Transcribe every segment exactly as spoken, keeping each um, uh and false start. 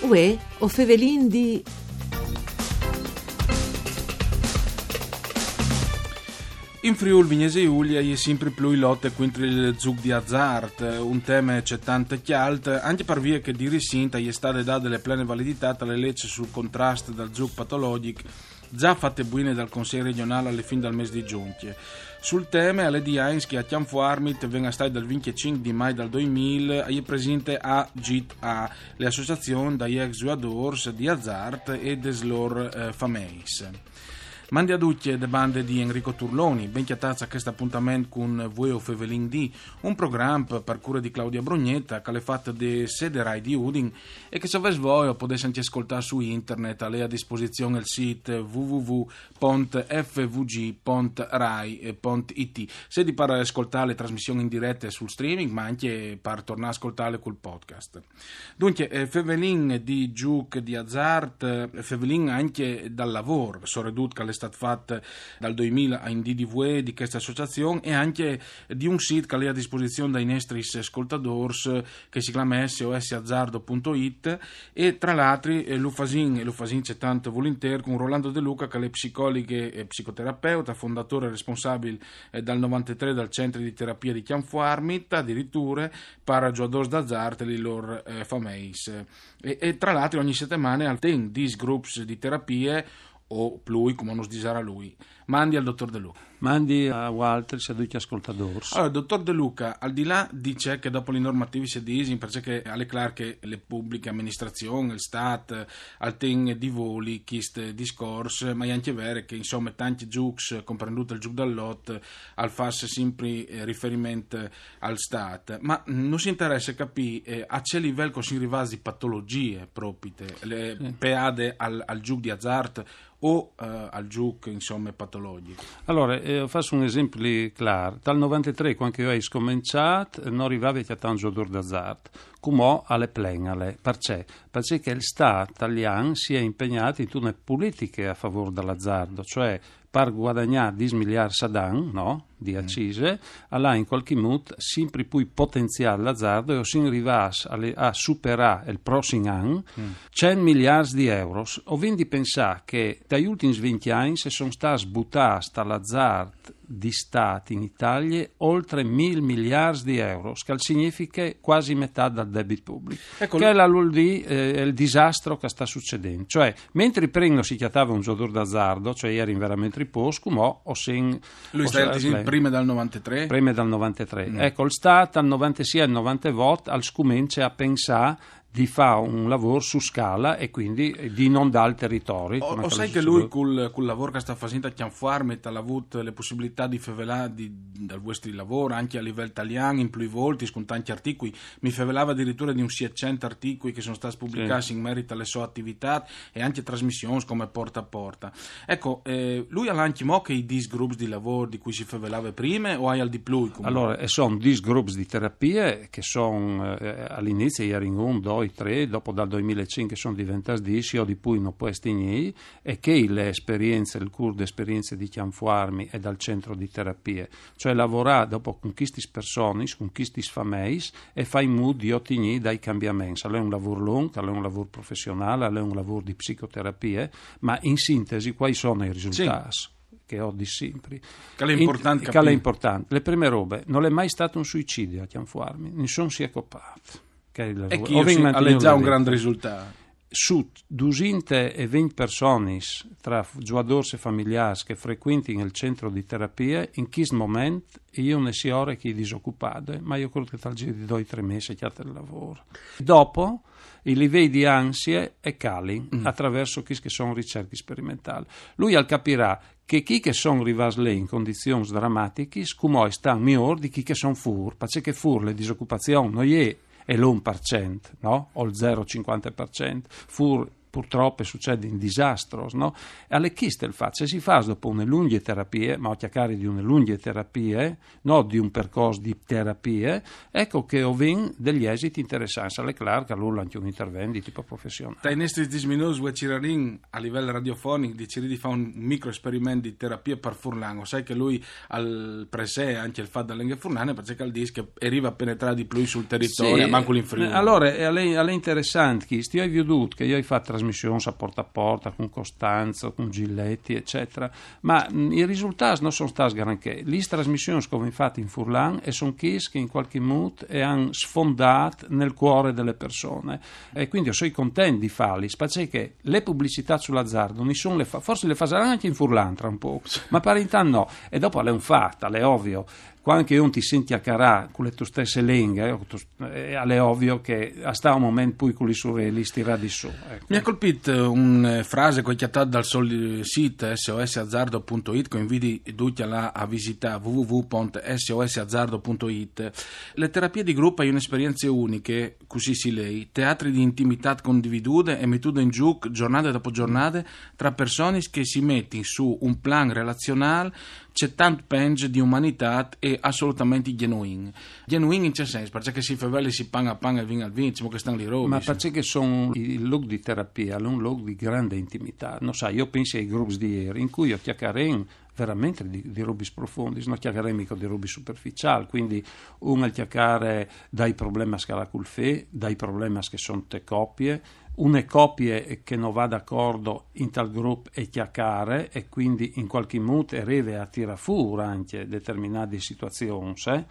Uè, o fevelin di... In Friûl Vignesie Julie e je simpri plui lote cuintri il zûc di azart, un teme ce tante cjalt, ancje par vie che di ricint e je stade dade le plene validitât a le leç sul contrast dal zûc patologjic, za fate buine dal Consei regjonâl a le fin dal mês di Zugn. Sul teme al è di agns che a Cjanfuarmit, ven a stâi dal vincjecinc di Mai dal doi mil, e je presinte a GIT A, le associazion dai ex zuiadôrs di azart e des lôr, eh, fameis. Mandi a ducj de bande di Enrico Turloni, ben cjatâts a chest apontament cun Vuê o fevelin di, un program par cure di Claudia Brugnetta, che al è fat de sede Rai di Udin e che, se o vês voie, o podês ancje scoltâ su internet, al è a disposizion il sît w w w pont f v g pont rai pont i t, sedi par scoltâ le trasmission in direte sul streaming, ma ancje par tornâ a scoltâle cul podcast. Duncje, eh, fevelin di zûc di azart, eh, fevelin ancje dal lavôr, soredut che al è stât fat dal doi mil a in dì di vuê di cheste associazion e ancje di un sît che al è a disposizion dai nestris scoltadôrs, che si clame s o s azardo punto it, e tra l'altri, eh, lu fasìn, e lu fasìn ce tant vulintîr, cun Rolando De Luca, che al è psicoliche e psicoterapeut, fondatôr e responsabil, eh, dal novantetrê dal Centri di Terapie di Cjanfuarmit, adiriture, par zuiadôrs d'azart e lis lôr, eh, fameis. E, e tra l'altri ogni setemane al ten dîs grups di terapie, o plui, cumò nus disarà lui. Mandi al dotôr De Luca. Mandi a vualtris e a ducj i scoltadôrs. Alore, dotôr De Luca, al di là di ce che dopo lis normativis si disin, parcè che al è clâr che le publiche aministrazion, il Stât, al ten di voli chist discors, ma e je ancje vere che, insome, tancj zûcs, comprendût il zûc dal lot, al fâs simpri, eh, riferiment al Stât. Ma, mm, nus interesse capî, eh, a ce livel che o sin rivâts di patologjie propite, le, peade al, al zûc di azart o, eh, al zûc, insome, patologjic. Alore, eh, o fâs un esempli clâr. Dal novantetrê, cuant che jo o ai scomençât, no rivavi a cjatâ un zuiadôr d'azart. Cumò al è plen, al è. Parcè? Parcè che il Stât talian si è impegnât intune politiche a favôr dal azardo, cioè par guadagnâ dîs miliarts ad an, no? Di accise, al à in cualchi mût simpri plui potenziât l'azardo e o sin rivâts a le, a superâ il prossim an cent miliarts di euros. O vin di pensâ che dai ultins vincj agns a son stâts butâts tal azart di Stât in Italie oltre mil miliarts di euros, che al significhe cuasi metât dal debit public. Ecco, che al vûl dî, eh, il disastro che al sta sucedint. Cioè, mentri prin no si cjatave un zuiadôr d'azardo, cioè a jerin verementri pôcs, cumò o sin... Lui o sta sin, disint, prime dal novantetrê? Prime dal novantetrê. Ecco, il Stât al novantesie e al novantevot al scomence a pensâ di fâ un lavôr su scala e cuindi di inondâ il teritori. O, o sai che lui cul, cul lavôr che al sta fasint a Cjanfuarmit al à vût le pussibilitât di fevelâ di, dal vuestri lavôr ancje a livel talian, in plui voltis, cun tancj articui. Mi fevelave adiriture di un sietcent articui che a son stâts publicâts in merit a le sô ativitât e ancje trasmissions come Porta a Porta. Ecco, eh, lui al à ancjemò chei dîs grups di lavôr di cui si fevelave prime o aial di plui, cumò? Alore, a son dîs grups di terapie che a son, eh, al inizi a jerin un, doi, trê, dopo dal doi mil e cinc a son deventâts dîs, jo di plui no pues tignî, e chê e je la esperience, il cûr di esperience di Cjanfuarmit e dal centro di terapie. Cioè lavorâ dopo cun chestis personis, cun chestis fameis e fâ in mût di otignî dai cambiaments. Al è un lavôr lunc, al è un lavôr professionâl, al è un lavôr di psicoterapie, ma in sintesi cuâi a son i risultâts? Sì. Che o dîs simpri. Che al è impuartant capî. Che al è impuartant. La prime robe, nol è mai stât un suicidi a Cjanfuarmit, nissun si è copât. Che al è, e chi al è za un grant risultât. Su dusinte e vincj personis, tra zuiadôrs e familiârs, che frecuentin il centro di terapie, in chest moment e je une siore che e je disocupade, ma jo crôt che tal zîr di doi, trê mês e cjate il lavôr. Dopo, i livei di ansie e calin, a traverso chês che a son ricerchis sperimentâls. Lui al capirà che chei che a son rivâts li in condizions dramatichis, cumò a stan miôr di chei che a son fûr, parcè che fûr la disocupazion no je il un par cent, no? O il zero cincuante par cent. Fûr Purtrop a sucedin disastros, no? E al è chest il fat, se si fâs dopo une lungje terapie, ma o cjacari di une lungje terapie, no di un percors di terapie, eco che o vin degli esits interessants. Al è clâr che alore al è ancje un intervent di tipo professionâl. Tai nestris dîs minûts vuê cirarìn a livel radiofonic di cirî di fâ un microesperiment di terapie par furlan. O sai che lui al presee ancje il fat de lenghe furlane, parcè che al dîs che e rive a penetrâ di plui sul teritori, sì, mancul in Friûl. Alore, al è, al è interessant chest, jo o ai viodût che jo o ai fat trasmissions a Porta a Porta cun Costanzo, cun Giletti, eccetera, ma, mm, i risultâts no son stâts granchê. Lis trasmissions che o vin fat in furlan e son chês che in cualchi mût e àn sfondât nel cuore de persone. E cuindi o soi content di fâlis, parcè che lis publicitâts sul azardo, nissun lis fa, forsit lis fasaran ancje in furlan tra un pôc, ma par intant no. E dopo al è un fat, al è ovio, cuant che un ti sint cjacarâ cu la tô stesse lenghe, eh, al è ovio che al sta un moment plui cu lis urelis tirât di sù, eco. Mi à colpît, eh, une, eh, frase che o ai cjatât dal sô, eh, sît S O S azardo punto it, che o invidi ducj a lâ a visitâ, w w w pont s o s azardo punto it. Lis terapiis di grup a son une esperience uniche, cussì si lei, teatri di intimitât condividude e metude in zûc zornade dopo zornade tra personis che si metin su un plan relazionâl ce tant penç di umanitât e assolutamentri gjenuin. Gjenuin in ce sens? Parcè che si fevele, si pan a pan e vin al vin, disìn che a stan li robis. Ma parcè che a son i lûcs di terapie, al è un lûc di grande intimitât. No sai, jo o pensi ai grups di îr, in cui o cjacarìn verementri di, di robis profondis, no cjacarìn mighe di robis superficiâls, cuindi un al cjacare dai problemis che al à cul fi, dai problemis che a son te copie, une copie che no va d'acordo intal grup e cjacare, e cuindi in cualchi mût e rive a tirâ fûr ancje determinadis situazions, eh.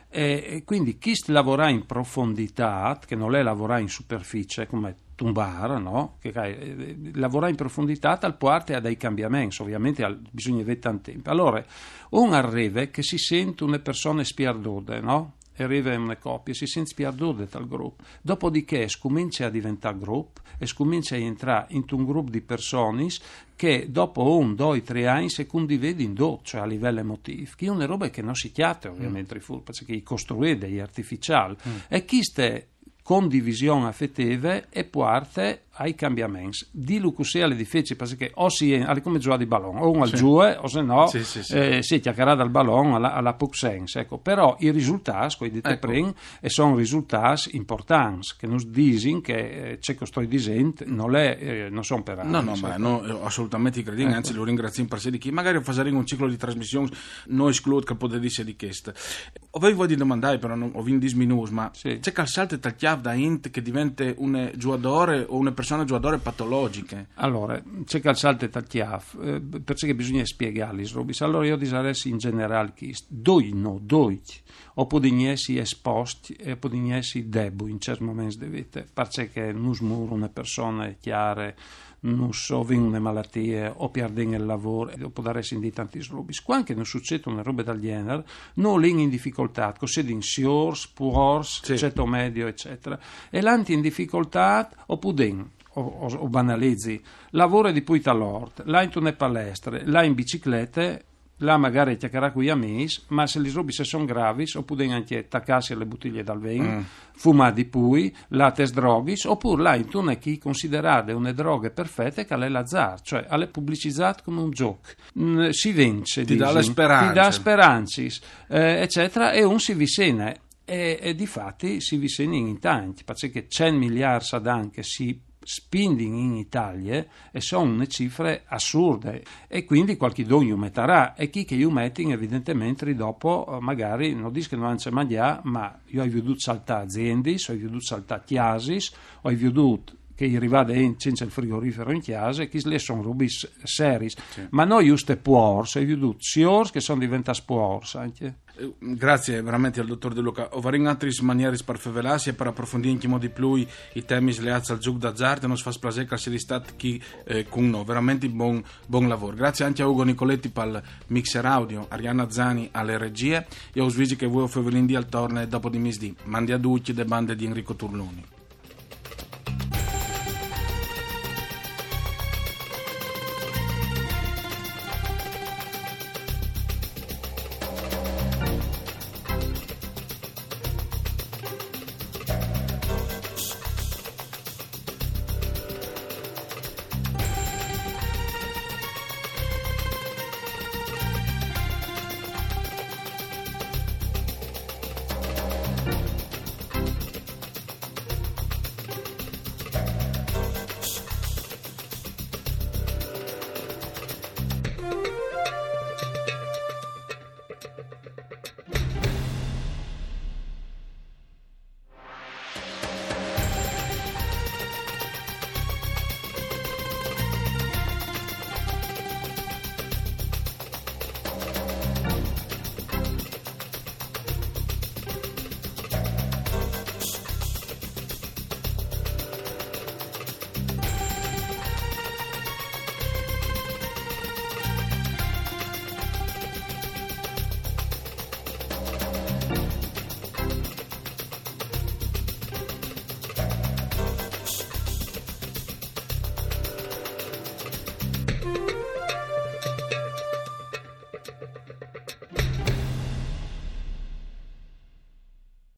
E, e cuindi chest lavorâ in profonditât, che nol è lavorâ in superficie, come tumbâ, no? Che, eh, lavorâ in profonditât al puarte a dai cambiaments, ovviamente al, bisugne vê tant timp. Alore, un al rive che si sint une persone spiardude, no? E rive une copie, si sint spiardude tal grup. Dopodiché e scumince a deventâ grup, e scumince a jentrâ intun grup di personis che dopo un, doi, trê agns e condividin dut, cioè a livel emotîf, che e je une robe che no si cjate, ovviamente, fûr, parcè che e je costruide, e je artificiâl. E cheste condivision afetive e puarte ai cambiaments. Dîlu cussì al è dificil, parcè che o si, al è come zuiâ di balon, o un al zuie, o se no, sì, sì, sì, eh, si cjacarà dal balon, al à, al à pôc sens, eco. Però i risultâts, che o ai dit prin, e son risultâts impuartants, che nus disin che, eh, ce che o stoi disint nol è, eh, no son per... No, no, ma no, eh, assolutamentri credìn, anzit lu ringraziìn par jessi chi. Magari o fasarìn un ciclo di trasmissions, no esclût che al podès jessi di chest. O vevi voie di domandâi, però no, o vin dîs minûts, ma ce che al salte tal cjâf da int che e devente une zuiadore o une persone zuiadore patologjiche? Alore, ce che al salte tal cjâf, eh, parcè che bisugne spiegâ lis robis. Alore jo o disarès in gjenerâl chest, ducj no, ducj o podìn jessi esposcj e o podìn jessi debui in cierts moments de vite, parcè che nus mûr une persone cjare, nus o vin une malatie, o pierdìn il lavôr, e o podaressin dî tantis robis. Cuant che nus sucêt une robe dal gjenar, nô o lin in dificoltât, che o sedin siôrs, puors, ceto medio, eccetera. E lant in dificoltât, o podìn, o, o, o banalizi, lavôre di puit tal ort, lâ intune palestre, lâ in biciclete, lâ magari a cjacarâ cui amîs, ma se lis robis a son gravis, o podìn ancje tacâsi a la butilie dal vin, fumâ di plui, lâ tes droghis, opûr lâ intune che e je considerade une droghe perfete, che al è l'azart, cioè al è publicizât come un zûc. Mm, si vince, ti dà la sperance, ti dà sperancis, eh, eccetera, e un si vicine. E, e difati si vicinin in tancj, parcè che cent miliarts ad an che si spindin in Italie e son une cifre assurde, e cuindi cualchidun ju metarà, e chei che ju metin evidentementri dopo, eh, magari, no dîs che no àn ce mangjâ, ma jo o ai viodût saltâ aziendis, o ai viodût saltâ cjasis, o ai viodût che e je rivade int cence il frigorifero in cjase, e chestis li a son robis seriis. Sì. Ma no juste puors, o ai viodût siôrs che a son deventâts puors ancje. Eh, grazie verementri al dotôr De Luca. O varìn altris manieris par fevelâsi e par aprofondî ancjemò di plui i temis leâts al zûc d'azart, e nus fâs plasê che al sedi stât chi, eh, cun nô. Verementri bon, bon lavôr. Grazie ancje a Ugo Nicoletti pal mixer audio, Arianna Zani a la regjie. Jo us visi che vuê o fevelìn di al torne dopo di misdì. Mandi a ducj de bande di Enrico Turloni.